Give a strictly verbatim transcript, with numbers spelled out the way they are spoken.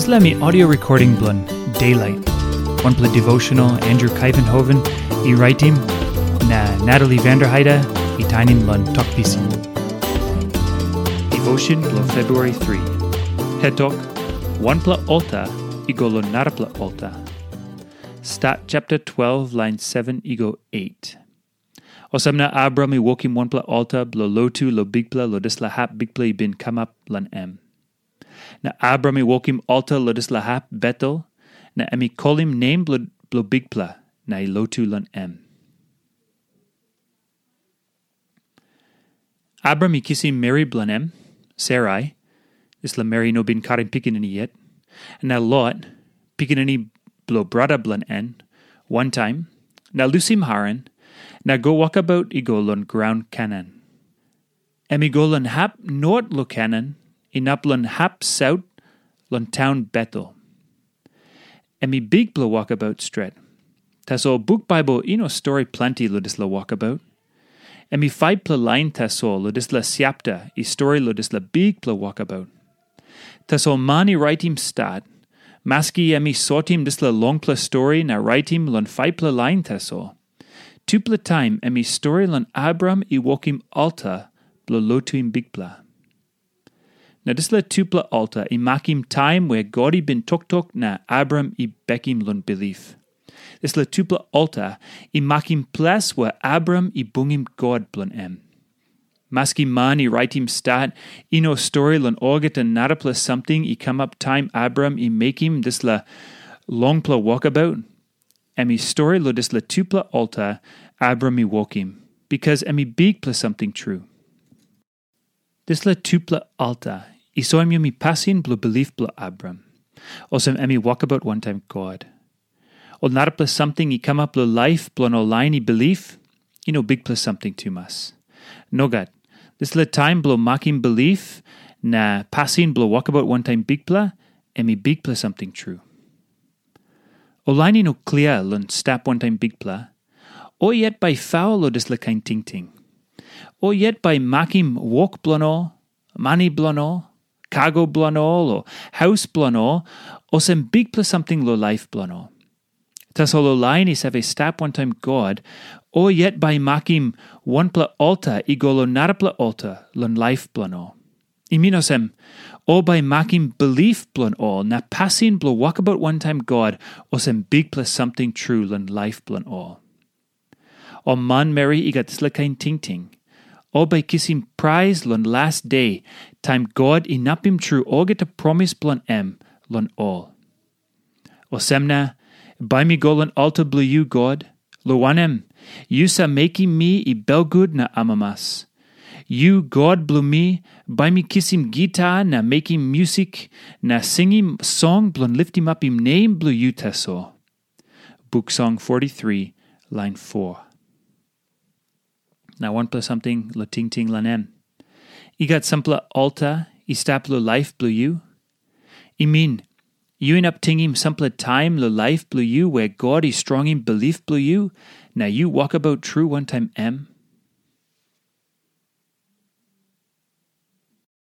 Dispela mi audio recording bilong Daylight, wanpela devotional Andrew Kaivenhoven i raitim, na Natalie Vanderheide i tainim long Tok Pisin. Devotion bilong February three. Hetok, wanpela alta i go long narapela alta. Stat chapter twelve, line seven i go eight. Olsem na Abram i wokim wanpela alta bilong lotu long Bikpela long dispela hap Bikpela i bin kamap long em. Na Abram i wokim alta long dispela hap Betel, na em i kolim nem bilong, bilong Bikpela, na i lotu long em. Abram i kisim meri bilong em, Sarai, dispela meri i no bin karim pikinini yet, na Lot, pikinini bilong brata bilong en, wantaim, na lusim Haran, na go wokabaut i go long graun Kanan. Em i go long hap not long Kanan, inap long hap saut long taun Betel. Em i bikpela wokabaut stret. Tasol buk Baibel i no stori planti long dispela wokabaut. Em i faipela lain tasol long dispela siapta i stori long dispela bikpela wokabaut. Tasol man i raitim stat, maski em i sotim dispela longpela stori na raitim long faipela lain tasol, tupela taim em i stori long Abraham i wokim alta bilong lotuim Bikpela. Na dispela tupela alta i makim taim wea God i bin toktok na Abraham i bekim long bilip. Dispela tupela alta i makim ples wea Abraham i bungim God bilong em. Maski man i raitim stat, i no stori long olgeta narapela samting i kamap taim Abraham i mekim dispela longpela wokabaut. Em i stori long dispela tupela alta Abraham i wokim, bikas em i bikpela samting tru. Dispela tupela alta i soim yumi pasin bilong bilip bilong Abraham, olsem em i wokabaut wantaim God. Ol narapela samting i kamap long laip bilong ol lain i bilip, i no bikpela samting tumas. Nogat, dispela taim bilong makim bilip na pasin bilong wokabaut wantaim Bikpela, em i bikpela samting tru. Ol lain i no klia long stap wantaim Bikpela, o yet bai faul long dispela kain tingting. O yet bai makim wok bilong ol, mani bilong ol, kago bilong ol, o haus bilong ol, olsem bikpela samting long laip bilong ol. Tasol ol lain i save stap wantaim God, o yet bai makim wanpela alta i go long narapela alta long laip bilong ol. I min olsem, ol bai makim bilip bilong ol na pasin bilong wokabaut wantaim God olsem bikpela samting tru long laip bilong ol. Ol manmeri i gat dispela kain tingting, ol bai kisim prais long las de, taim God inapim tru olgeta promis bilong em long ol. Olsem na, bai mi go long alta bilong yu, God, long wanem, yu save mekim mi i belgut na amamas. Yu, God bilong mi, bai mi kisim gita na mekim musik na singim song bilong litimapim nem bilong yu tasol. Buk Song forty-three, lain four. Na wanpela samting long tingting long em. I gat sampela alta i stap long laip bilong yu? I min, yu inap tingim sampela taim long laip bilong yu wea God i strongim bilip bilong yu, na yu wokabaut tru wantaim em?